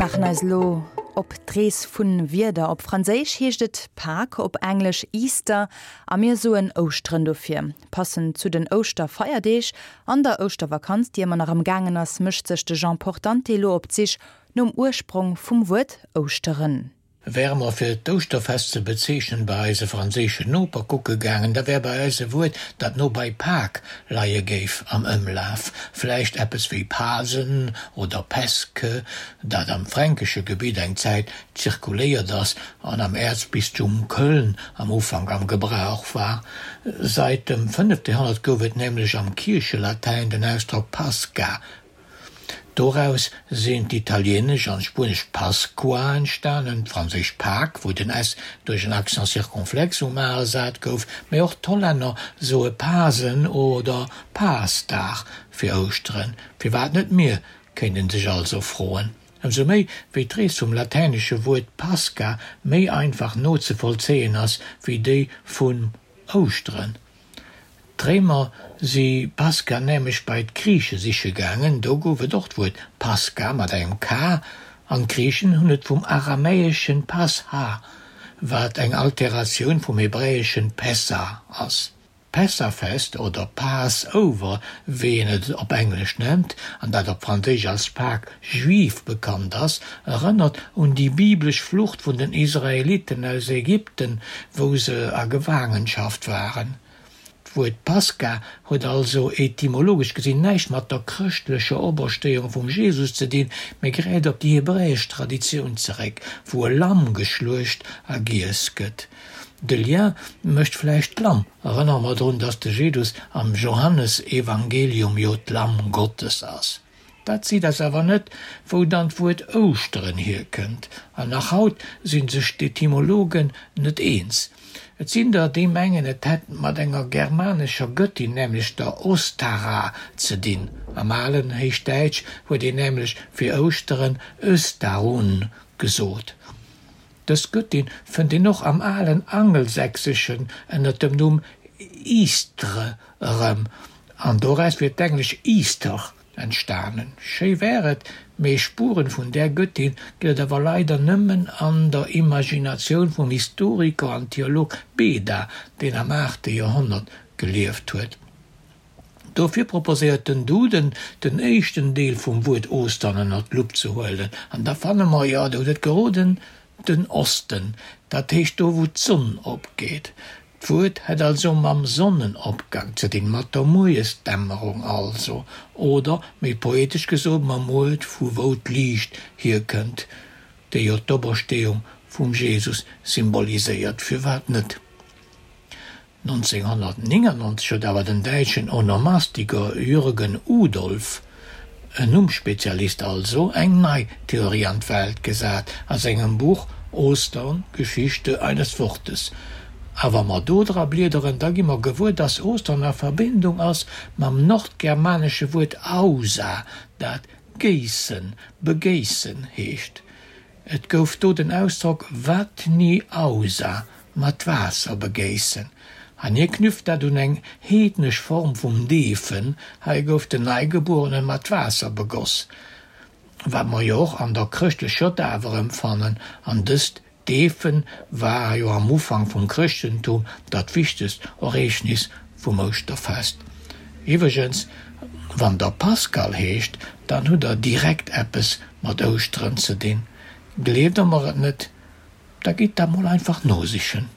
maachen eis elo op d'Rees vun Wierder. Op Franséisch heescht et Pâques, op Englesch Easter a mir soen Ouschteren dofir. Passend zu den Ouschterfeierdeeg an der Ouschtervakanz, déi ëmmer nach am gaangen ass, mécht sech de Jean Portante elo op d'Sich nom Ursprong vum Wuert Ouschteren. Wäre mer fir d'Ouschterfest ze bezeechnen bei eise franséischen Noper kucke gaangen, da wär bei eis e Wuert, dat no bei Pâques leie géif, am Ëmlaf. Vläicht eppes wéi Pasen oder Pesque, dat am fränkesche Gebitt eng Zäit zirkuléiert ass an am Äerzbistum Köln am Ufank am Gebrauch war. Sait dem fënnefte Joerhonnert gouf et nämlech am Kierchelatäin den Ausdrock Pascha, Doraus sinn d'italieenesch an d'spuenesch Pascua entstanen, d'franséisch Pâques, wou den s duerch en Accent circonflexe um a ersat gouf, mee och d'Hollänner soe Pasen oder Paasdag fir Ouschteren. Firwat net mir, kéint een sech also froen. Ëmsou méi, wéi d'Rees vum latäinesche Wuert Pascha méi einfach nozevollzéien ass wéi déi vun Ouschteren. D'Réimer si Pascha nämlech bei d'Griiche siche gaangen, do gouf et och d'Wuert Paska mat engem K, an d'Griichen hunn et vum aramäeschen Pascha, wat eng Alteratioun vum hebräeschen Pessah ass. D'Pessahfest oder Passover, wéi een et op Englesch nennt, an dat op Franséisch als Pâques juive bekannt ass, erënnert un déi biblesch Flucht vun den Israeliten aus Ägypten, wou se a Gefaangenschaft waren. D'Wuert Pascha huet also etymologesch gesinn näischt mat der chrëschtlecher Operstéiung vum Jesus ze dinn, mee gräift op déi hebräesch Traditioun zeréck, wou e Lamm geschluecht a giess gëtt. De Lien mécht vläicht d'Lamm. Erënnere mer drun, datt de Jesus am Johannesevangelium jo d'Lamm Gottes ass. Dat seet eis awer net, wou dann d'Wuert Ouschteren hierkënnt. An nach haut si sech d'Etymologen net eens. Et sinn der, déi mengen, et hätt mat enger germanescher Gëttin, nämlech der Ostara, ze dinn. Am alen Héichdäitsch huet een nämlech fir Ouschteren Östarun gesot. Dës Gëttin fënnt een och am alen Angelsächseschen ënner dem Numm Eastre erëm, an doraus wier d'englesch Easter entstanen. Schéi wär et, mee Spuren vun där Gëttin gëtt et awer leider nëmmen an der Imaginatioun vum Historiker an Theolog Beda, deen am aachte Joerhonnert gelieft huet. Dofir proposéiert den Duden, den éischten Deel vum Wuert Ostern ënner d'Lupp ze huelen, an da fanne mer, jo, der hutt et geroden, den Osten, dat heescht do wou d'Sonn opgeet. D'Wuert hätt also mam Sonnenopgang ze dinn, mat der Mueresdämmerung also, oder, méi poetesch gesot, mam Uert vu wou d'Liicht hierkënnt, déi jo d'Opersteeung vum Jesus symboliséiert. Firwat net? 1999 huet awer den däitschen Onomastiker Jürgen Udolph, en Nummspezialist also, eng nei Theorie an d'Welt gesat a sengem Buch Ostern, Geschichte eines Wortes. A wa mer do dra bliederen, da gi mer gewuer, dass Ostern a Verbindung ass mam nordgermanesche Wuert ausa, dat géissen, begéissen heescht. Et gouf do den Ausdrock Vatni ausa, mat Waasser begéissen, an hie knüpft dat un eng heednesch Form vum Deefen, hei gouf den Neigebuerene mat Waasser begoss, wat mer jo och an der chrëschtlecher Daf erëmfannen, an dëst Deefen war jo am Ufank vum Chrëschtentum dat wichtegst Ereegnis vum Ouschterfest. Iwwregens, wann der Pascal heescht, dann hutt der direkt eppes mat Ouschteren ze dinn. Gleeft der mer et net, da gitt dat mol einfach nosichen.